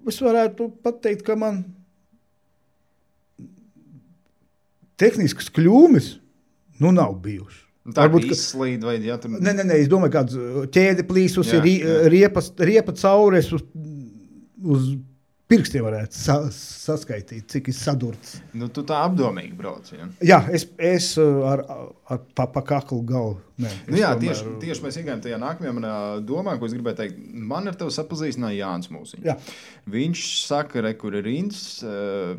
es varētu pateikt, ka man tehniskas kļūmes nav bijušas. Tā varbūt izslīd vai tur... Nē, es domāju, kāds ķēde plīsus ir riepa caures uz pirkstiem varētu saskaitīt, cik ir sadurts. Tu tā apdomīgi brauc, ja? Jā, es ar pa kaklu galvu. Tieši mēs iegājām tajā nākamajā manā domā, ko es gribēju teikt. Man ar tevi sapazīstināja Jānis Mūsiņš. Jā. Viņš saka, kur ir Inds,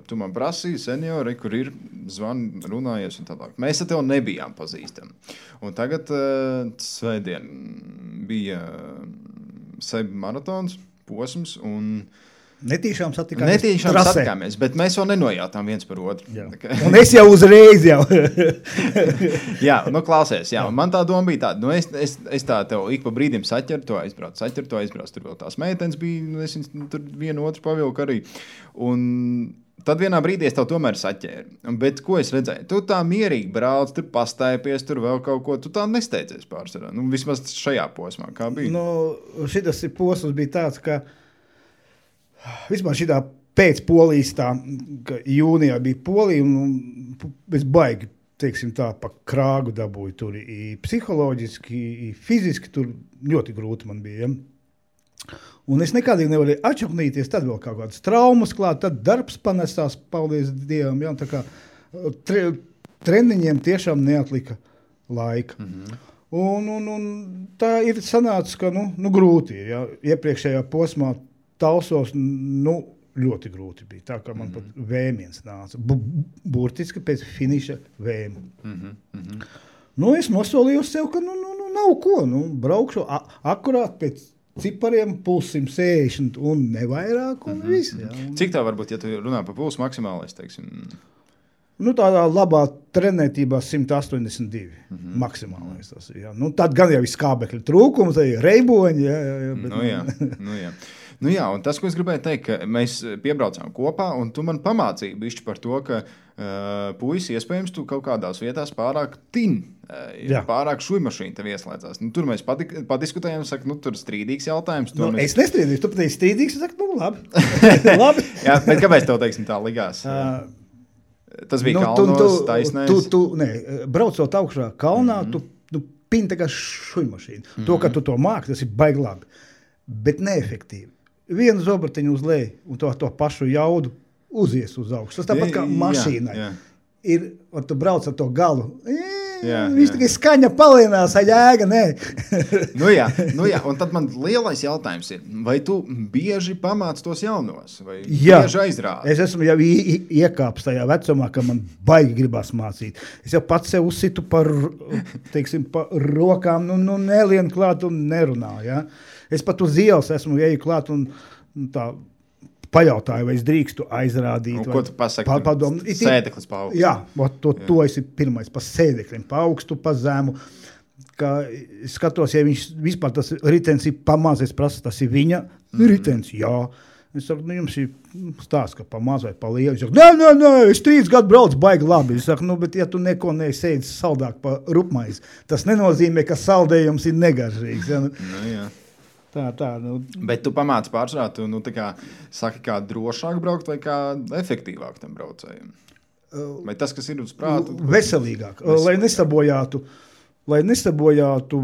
tu man prasīji, seniori, kur ir zvani, runājies un tālāk. Mēs ar tevi nebijām pazīstami. Un tagad svētdien bija Seba maratons, posms un... Netīšām satikāmies, bet mēs vēl nenojātām viens par otru. Un es jau uzreiz jau. Jā, klausies, man tā doma bija tāda, es tā tev ik pa brīdim saķeru, to aizbrauc, tur vēl tās meitenes bija, es tur vienu otru pavilku arī, un tad vienā brīdī es tev tomēr saķēru, bet ko es redzēju, tu tā mierīgi brauc, tur pastaipies, tur vēl kaut ko, tu tā nesteidzies pārsvarā, vismaz šajā posmā, kā bija? Šitas posms bija tāds, ka vispār šitā pēc Polijas tā, ka jūnijā bija Polija un es baigi, teiksim tā, pa krāgu dabūju tur i psiholoģiski, i fiziski tur ļoti grūti man bija. Ja? Un es nekādīgi nevarēju atšaknīties, tad vēl kaut kādas traumas klāt, tad darbs panesās, paldies Dievam, ja? Tā kā treniņiem tiešām neatlika laika. Un tā ir sanācis, ka grūti ir, ja? Iepriekšējā posmā Talsos, ļoti grūti bija. Tā kā man pat vēmiens nāca. Burtiski pēc finiša vēma. Es nosolīju sev, ka nav ko. Braukšu akurāt pēc cipariem puls 160 un nevairāk un viss. Cik tā varbūt, ja tu runā par pulsu maksimālais, teiksim? Tādā labā trenētībā 182 maksimālais tas ir. Tad gan jau ir skābekļa trūkums, reiboņi. Jā. Un tas, ko es gribēju teikt, ka mēs piebraucām kopā, un tu man pamācīji bišķi par to, ka puisi iespējams tu kaut kādās vietās pārāk pārāk šujmašīna tev ieslēdzās. Tur mēs padiskutējām, saka, tur strīdīgs jautājums. Es nestrīdīšu, tu pateici strīdīgs, es saku, labi. labi. Jā, bet kāpēc tev, teiksim, tā ligās? Tas bija kalnos, taisnēs? Braucot augšā kalnā, tu pini tā kā šujmašīna. To, ka tu to māki, tas ir baigi labi, bet neefektīvi. Vienu zobratiņu uz leju un to pašu jaudu uzies uz augšu. Tas tāpat kā mašīnai. Ir, tu brauc ar to galu. Viņš tikai skaņa palienās, jēga, nē. Un tad man lielais jautājums ir, vai tu bieži pamāc tos jaunos? Vai bieži aizrādi? Es esmu jau iekāpis tajā vecumā, ka man baigi gribās mācīt. Es jau pats sev uzsitu par rokām, nelien klāt un nerunā, ja? Es pat uz ielas esmu eju klāt un tā pajautāju, vai es drīkstu aizrādīt. Un ko tu pasaki? Sēdeklis pa augstu. Jā, to esi pirmais pa sēdeklim, pa augstu, pa zemu. Es skatos, ja viņš vispār tas ritens ir pamaz, es prasu, tas ir viņa ritens, jā. Es saku, jums ir stāsts, ka pa maz vai pa lielu. Es saku, nē, es 3 gadu braucu baigi labi. Es saku, bet ja tu neko neesēdzi saldāk pa rupmaizi, tas nenozīmē, ka saldējums ir negaržīgs. Ja? Jā. Bet tu pamāci pārsvarā, tu saki, kā drošāk braukt vai kā efektīvāk tam braucējiem? Vai tas, kas ir uz prātu? Veselīgāk, lai nesabojātu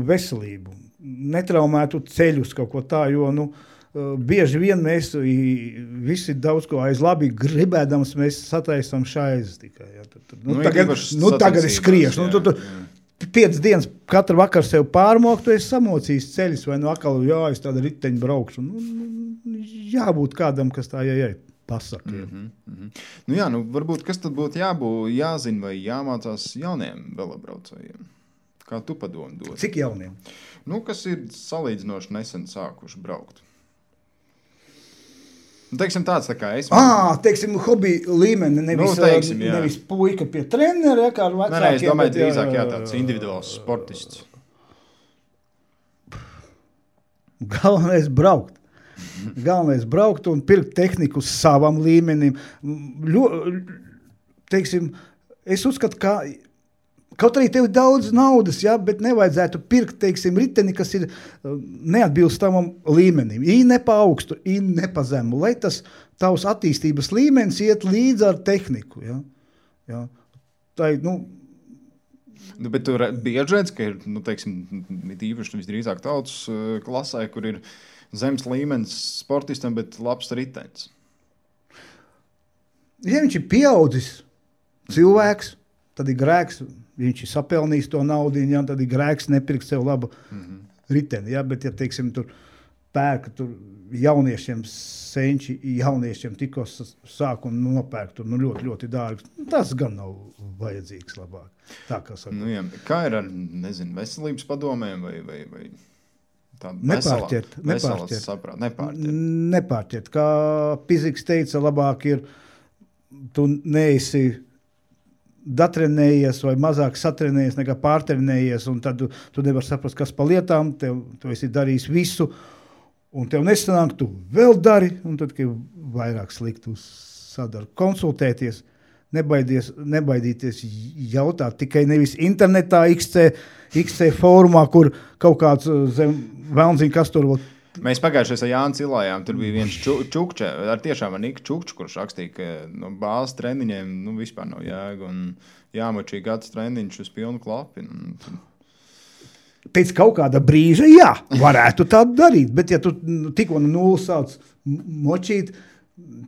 veselību, netraumētu ceļus kaut ko tā, jo, bieži vien mēs visi daudz ko aiz labi gribēdams, mēs sataisam šaizes tikai. Ja. Tagad es skriešu. 5 dienas katru vakaru sev pārmokt, tu esi samocījis ceļus, vai atkal es tādu riteņu braukšu. Jābūt kādam, kas tā pasaka. Varbūt kas tad būtu jāzina vai jāmācās jauniem velobraucējiem? Kā tu padomu dod? Cik jauniem? Kas ir salīdzinoši nesen sākuši braukt? Teiksim tāds, tā kā es. Teiksim, hobby līmeni, nevis puika pie trenera, kā ar vecākiem. Es domāju, drīzāk tāds individuāls sportists. Galvenais braukt un pirkt tehniku savam līmenim. Teiksim, es uzskatu, ka kaut arī tev ir daudz naudas, bet nevajadzētu pirkt, teiksim, riteni, kas ir neatbilstamam līmenim. Ne pa augstu, ne pa zemu. Lai tas tavs attīstības līmenis iet līdz ar tehniku. Ja? Tā ir, Bet tu bieži redz, ka ir, teiksim, īpaši visdrīzāk tautas klasē, kur ir zemes līmenis sportistam, bet labs ritenis. Ja viņš ir pieaudzis cilvēks, tad ir grēks. Viņš ir sapelnījis to naudu, tad ir grēks nepirkt sev labu riteni. Ja? Bet, ja teiksim, tur pērka jauniešiem senči, jauniešiem tikko sāk un nopērk ļoti, ļoti dārgi, tas gan nav vajadzīgs labāk. Tā kā saka. Kā ir ar, veselības padomēm vai tādu nepārķert. Kā Piziks teica, labāk ir, tu neesi datrenējies vai mazāk satrenējies nekā pārtrenējies, un tad tu nevar saprast, kas pa lietām, tu esi darījis visu, un tev nesanāk, tu vēl dari, un tad, kad vairāk sliktu sadara. Konsultēties, nebaidīties jautāt, tikai nevis internetā, XC fórumā, kur kaut kāds velnziņ, kas tur vēl. Mēs pagājušajā ar Jānu cilājām, tur bija viens čukča, tiešām ar Niku Čukču, kurš rakstīja, ka bāzes treniņiem vispār nav jēga un jāmačī gads treniņš uz pilnu klapi. Pēc kaut kāda brīža, varētu tā darīt, bet ja tu tikko no nulles sāc močīt,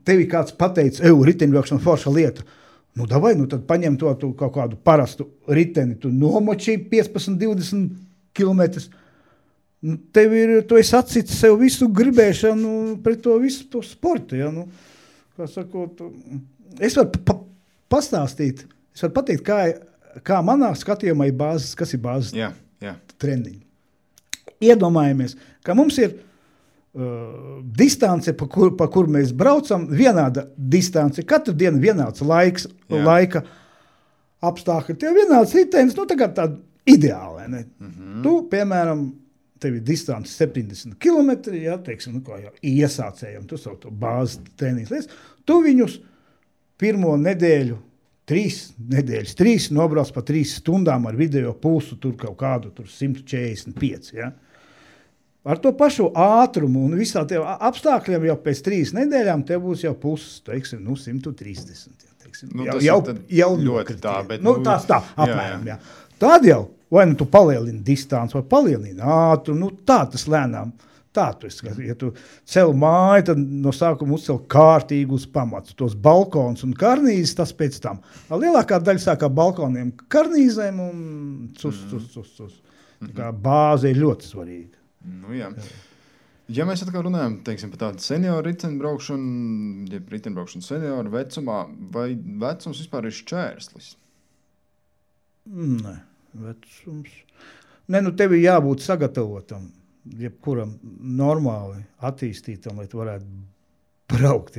tevi kāds pateica, riteņbraukšana forša lieta. Tad paņem to kaut kādu parastu riteni, tu nomočī 15-20 kilometrus. Tu esi atsits sev visu gribēšanu pret to visu to sportu. Ja? Kā sakot, es varu pastāstīt, es varu pateikt, kā manā skatījumā ir bāzes, kas ir bāzes treniņi. Iedomājamies, ka mums ir distance, pa kur mēs braucam, vienāda distance, katru dienu vienāds laika apstākļi. Tev vienāds ritenis, tagad tāda ideāla. Ne? Tu, piemēram, tev ir distance 70 km, teiksim, iesācējam, tu savu to bāzes treniņas lietas, tu viņus pirmo nedēļu, 3 nobrauc pa 3 stundām ar video pulsu, tur kaut kādu 145, Ar to pašu ātrumu un visā tev apstākļiem jau pēc 3 nedēļām tev būs jau pulss, teiksim, 130, teiksim. Jau ļoti tā, bet... tās tā, apmēram, Tad jau, vai tu palielini distanci, vai palielini ātrumu, tā tas lēnām. Tā tu esi, ja tu cel māju, tad no sākuma uzcel kārtīgi uz pamatu. Tos balkons un karnīzes, tas pēc tam. Lielākā daļa sākā balkoniem karnīzēm un cus. Tā kā bāze ir ļoti svarīga. Ja mēs atkal runājam, teiksim, par tādu senioru riteņbraukšanu, ja riteņbraukšanu senioru vecumā, vai vecums vispār ir šķērslis? Nē, vecums. Tev ir jābūt sagatavotam. Jebkuram normāli attīstītam, lai tu varētu braukt,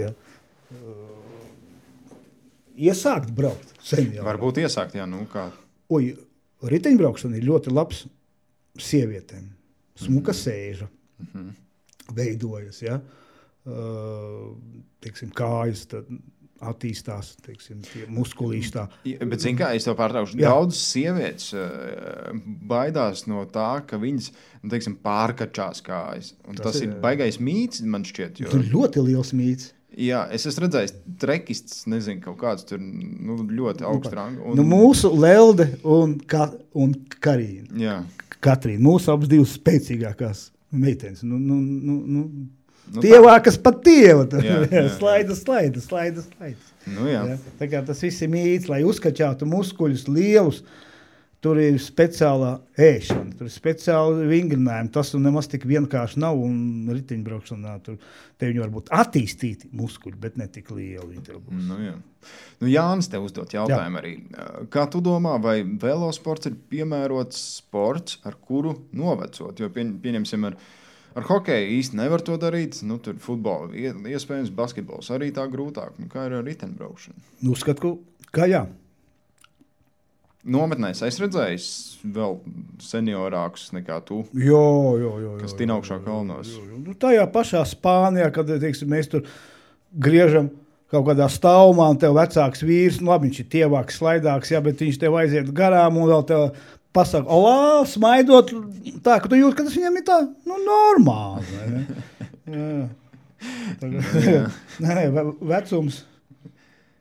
Iesākt braukt seniori. Varbūt iesākt, kā. Riteņbraukšana ir ļoti labs sievietēm. Smuka sēža veidojas, teiksim, kājas, tad attīstās, teiksim, tie muskulīši tā. Bet, zin kā, es tev pārtraukšu, daudz sievietes baidās no tā, ka viņas, teiksim, pārkačās kājas. Un tas ir baigais mīts, man šķiet. Jo... Ļoti liels mīts. Jā, es esmu redzējis trekists, nezinu, kaut kāds tur ļoti augsts rangs. Mūsu Lelde un Karīna. Jā. Katrīna, mūsu abas divas spēcīgākās meitenes. Tievākas pat tieva. Slaida. Jā. Tā kā tas viss ir mīts, lai uzkačātu muskuļus lielus. Tur ir speciālā ēšana, tur ir speciāli vingrinājumi. Tas nemaz tik vienkārši nav, un riteņbraukšanā tur te viņi var būt attīstīti muskuļi, bet ne tik lieli. Jā. Jānis tev uzdot jautājumu arī. Kā tu domā, vai velosports ir piemērots sports, ar kuru novecot? Jo pieņemsim ar hokeju īsti nevar to darīt. Tur futbolu iespējams, basketbols arī tā grūtāk. Kā ir ar riteņbraukšanu? Uzskatu, ka jā. Nometnēs es redzēju vēl seniorākus nekā tu, kas tin augšā kalnos. Tajā pašā Spānijā, kad teiksim, mēs tur griežam kaut kādā stāvumā, un tev vecāks vīrs, labi, viņš ir tievāks, slaidāks, bet viņš tev aiziet garām un vēl tev pasaka, olā, smaidot, tā, ka tu jūt, ka tas viņam ir tā, normāli. Nē, vecums.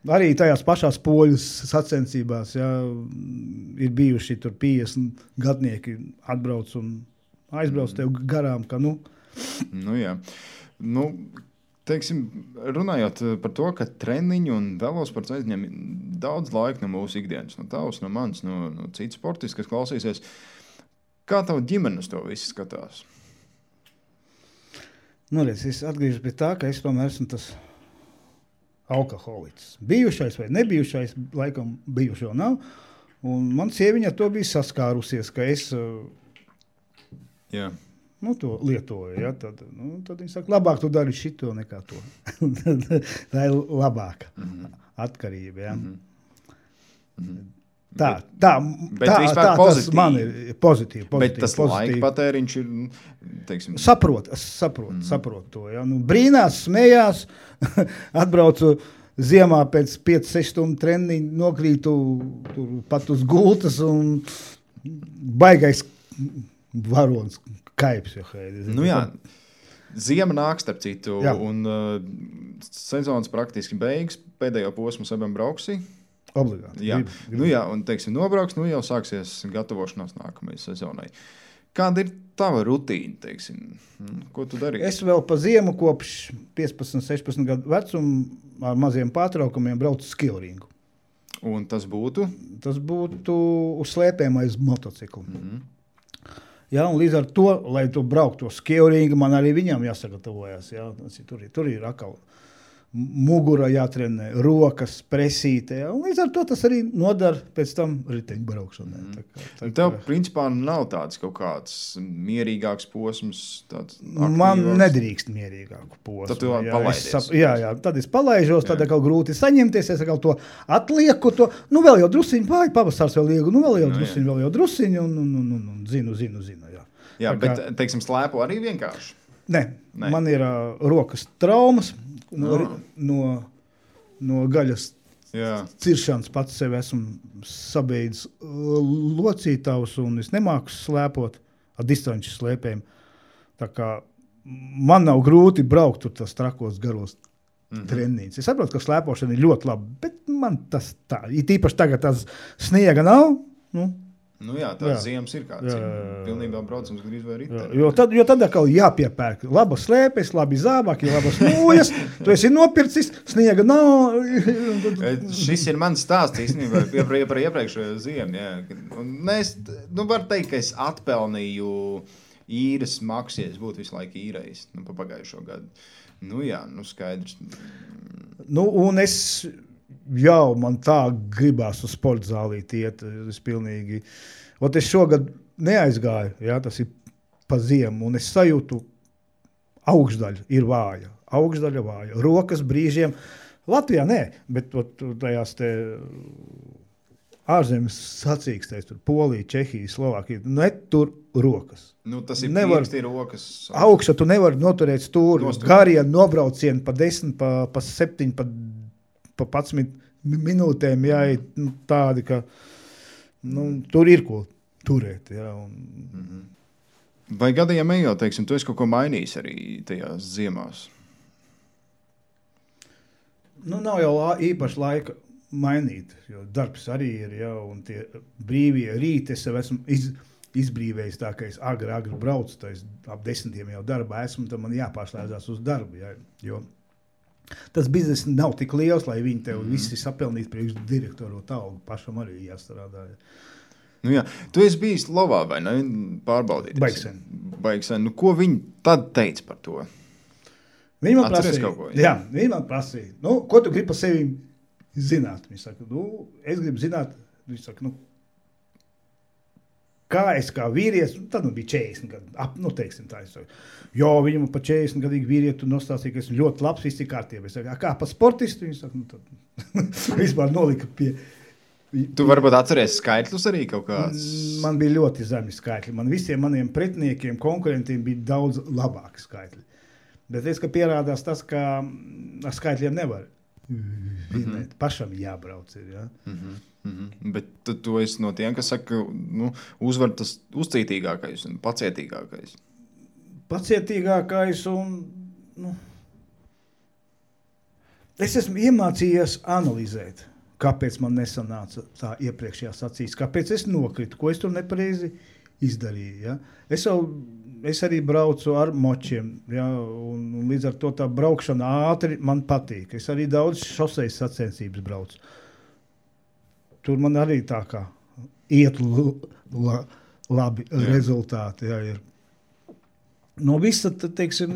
Arī tajās pašās poļu sacensībās ir bijuši tur 50 gadnieki atbrauc un aizbrauc tev garām, ka Jā. Teiksim, runājot par to, ka treniņi un velosports aizņem daudz laika no mūsu ikdienas, no tavs, no manis, no citu sportistu, kas klausīsies. Kā tava ģimenes to visu skatās? Redz, es atgriežos pie tā, ka es tomēr esmu tas alkoholiķis. Bijušais vai nebijušais, laikam bijušo nav. Un man sieviņa to bija saskārusies, ka es to lietoju. Tad viņa saka, labāk tu dari šito nekā to. Tā ir labāka atkarība. Tā tas man ir pozitīvi. Bet tas laika patēriņš ir, teiksim... Saprot to. Brīnās, smējās, atbraucu ziemā pēc 5-6 stundu treniņu, nokrītu pat uz gultas un baigais varons kaips. Ziema nāk starp citu, un sezonas praktiski beigas, pēdējo posmu sabam brauksi. Obligāti. Un, teiksim, nobrauks, jau sāksies gatavošanās nākamajai sezonai. Kāda ir tava rutīna, teiksim? Ko tu dari? Es vēl pa ziemu kopš 15-16 gadu vecumu ar maziem pārtraukumiem braucu skilringu. Un tas būtu? Tas būtu uz slēpēm aiz motociklu. Un līdz ar to, lai tu brauktu to skilringu, man arī viņam jāsagatavojas. Tur ir atkal mugura jātrenē, rokas, presīte. Un līdz ar to tas arī nodara pēc tam riteņbraukšanai. Tev, principā, nav tāds kaut kāds mierīgāks posms? Man nedrīkst mierīgāku posmu. Tad tu palaidies? Tad es palaižos, tad atkal grūti saņemties, es atkal to atlieku. Vēl jau drusiņu, pavasars vēl iegu, vēl jau drusiņu, un zinu. Jā, bet, teiksim, slēpo arī vienkārši? Nē. Man ir rokas traumas. No gaļas ciršanas pats sevi esmu sabeidzis locītavus un es nemāku slēpot ar distanču slēpēm. Tā kā man nav grūti braukt tur tas trakos garos treniņus. Es saprotu, ka slēpošana ir ļoti laba, bet man tas tā. Ir tīpaši tagad tās sniega nav. Tās ziemas ir kāds. Pilnībā braucams gandrīz vai riteni. Jo tad atkal jāpiepērk. Labas slēpes, labi zābaki, labas nūjas. Tu esi nopircis, sniega nav. Šis ir mans stāsts īstenībā par iepriekšējo ziemu. Es varu teikt, ka es atpelnīju īres maksu, ja es būtu visu laiku īrējis pa pagājušo gadu. Skaidrs. Un es... man tā gribās uz sporta zālīt iet. Es pilnīgi... es šogad neaizgāju, tas ir pa ziemu, un es sajūtu augšdaļa ir vāja. Rokas brīžiem. Latvijā nē, bet tajās te ārzemes sacīkstēs, tur Polija, Čehija, Slovākija, tur rokas. Tas ir pieksti rokas. Augšā tu nevari noturēt stūri. Garie nobraucieni pa 10, pa 7, pa pa 11 minūtēm jāiet tādi, ka tur ir ko turēt. Jā, Vai gadījumā ejot, teiksim, tu esi kaut ko mainījis arī tajās ziemās? Nav jau īpaši laika mainīt, jo darbs arī ir, jā, un tie brīvie rīti, es jau esmu izbrīvējis tā, ka es agri braucu, tā es ap 10 jau darbā esmu, tad man jāpārslēdzās uz darbu, jā, jo tas bizness nav tik liels, lai viņi tev visi sapelnītu priekš direktoru talgu, pašam arī jāstrādā. Jā. Tu esi bijis Lovā, vai ne? Pārbaudīt. Baigsen. Ko viņi tad teica par to? Viņi man prasīja. Viņi man prasīja. Ko tu gribi par sevi zināt? Viņi saka, es gribu zināt, viņi saka, kā es kā vīrietis, tad bija 40 gadu, teiksim tā, es saku, viņam pa 40 gadīgi vīrietu nostāstīja, ka es ļoti labs, viss ir kārtībā. Es saku, kā pa sportistu? Viņi saka, tad vispār nolika pie... Tu varbūt atceries skaitļus arī kaut kāds? Man bija ļoti zemi skaitļi. Man visiem maniem pretiniekiem, konkurentiem bija daudz labāki skaitļi. Bet es, ka pierādās tas, ka ar skaitļiem nevar vinēt. Pašam jābrauc ir, jā. Bet tu esi no tiem, kas saka, uzvar tas uzcītīgākais un pacietīgākais. Pacietīgākais un, es esmu iemācījies analizēt. Kāpēc man nesanāca tā iepriekšējā sacīs, kāpēc es nokritu, ko es tur nepareizi izdarīju. Ja? Es arī braucu ar močiem, ja? un līdz ar to tā braukšana ātri man patīk. Es arī daudz šosejas sacensības braucu. Tur man arī tā kā iet labi rezultāti. Ja, ir. No visa, teiksim,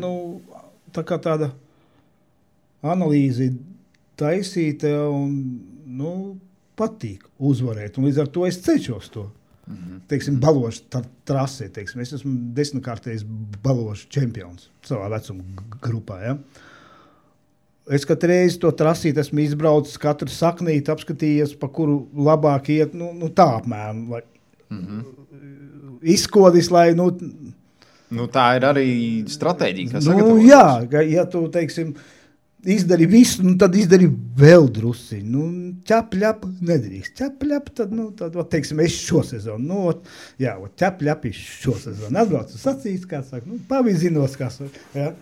tā kā tāda analīze taisīta un patīk uzvarēt, un līdz ar to es cenšos to. Teiksim, balošu trasē, teiksim, es esmu 10-kārtējs balošu čempions savā vecuma grupā, ja. Es katru reizi to trasīt esmu izbraucis, katru saknīti apskatījies, pa kuru labāk iet, tā apmēram, lai izkodis, lai, tā ir arī stratēģija, kas sagatavotas. Jā, ja tu, teiksim, izdari visu, tad izdari vēl drusi. Ķap-ļap nedrīkst. Ķap-ļap, tad, teiksim, es šo sezonu. Ķap-ļap šo sezonu. Atbraucu sacīs, kā saka, pavizinos, kā saka. Ja.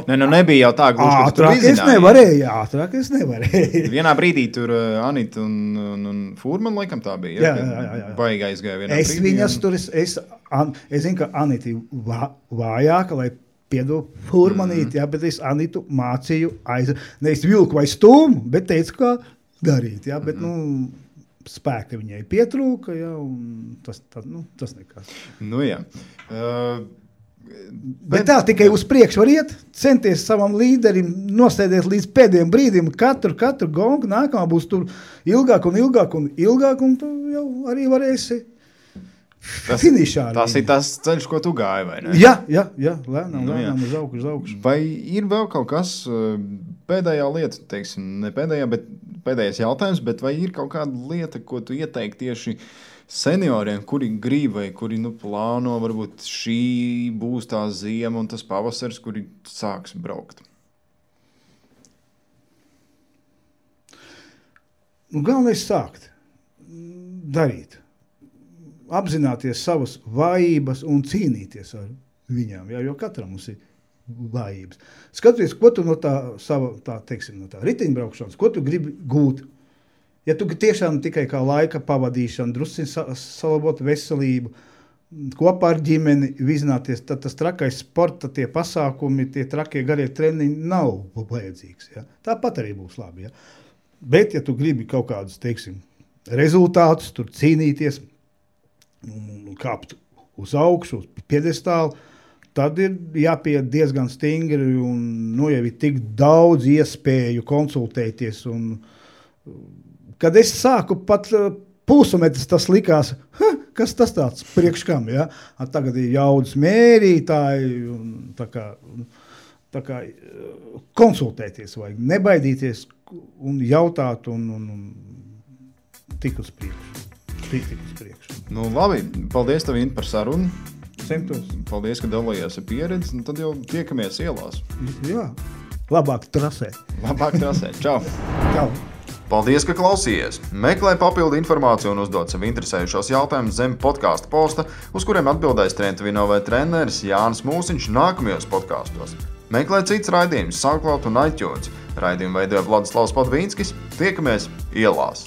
Nebija jau tā gluži, ka tu izināji. Ātrāk es nevarēju. Vienā brīdī tur Anita un Fūrman, laikam tā bija. Jā. Baigā izgāja vienā brīdī. Es viņas tur, es zinu, ka Anita vājāka, lai piedod Fūrmanīt, bet es Anitu mācīju nevis vilku vai stūmu, bet teicu, kā darīt, bet, spēka viņai pietrūka, un tas nekas. Jā. Bet tā tikai uz priekšu var iet, centies savam līderim, nosēdēt līdz pēdējiem brīdim, katru gongu, nākamā būs tur ilgāk, un tu jau arī varēsi finišā. Tas ir tas ceļš, ko tu gāji, vai ne? Jā, lēnām uz augšu. Vai ir vēl kaut kas pēdējā lieta, teiksim, ne pēdējā, bet pēdējais jautājums, bet vai ir kaut kāda lieta, ko tu ieteikti tieši senioriem, kuri grib vai kuri plāno, varbūt šī būs tā ziema un tas pavasars, kuri sāks braukt? Galvenais sākt darīt. Apzināties savas vājības un cīnīties ar viņām, jo katram mums ir vājības. Skaties, ko tu no tā riteņbraukšanas, ko tu gribi gūt. Ja tu tiešām tikai kā laika pavadīšana, drusciņ salabot veselību, kopā ar ģimeni vizināties, tad tas trakais sporta, tie pasākumi, tie trakie garie treniņi nav vajadzīgs. Ja? Tāpat arī būs labi. Ja? Bet, ja tu gribi kaut kādus, teiksim, rezultātus, tur cīnīties, kāpt uz augšu, uz piedestālu, tad ir jāpiet diezgan stingri un jau ir tik daudz iespēju konsultēties. Un, kad es sāku pat pulsometrs, tas likās, kas tas tāds priekš kam, ja? Tagad ir jaudas mērītāji, un tā kā konsultēties vajag, nebaidīties un jautāt un tik uz priekšu. Labi, paldies tev, Inta, par sarunu. Centos. Paldies, ka dalījās ar pieredzi, tad jau tiekamies ielās. Jā. labāk trasē. Čau! Čau! Paldies, ka klausījies! Meklē papildu informāciju un uzdod sev interesējušos jautājumus zem podkāstu posta, uz kuriem atbildēs Trentvinove treneris Jānis Mūsiņš nākamajos podkāstos. Meklē cits raidījums SoundCloud un iTunes. Raidījumu veidoja Vladislavs Padvīnskis. Tiekamies ielās!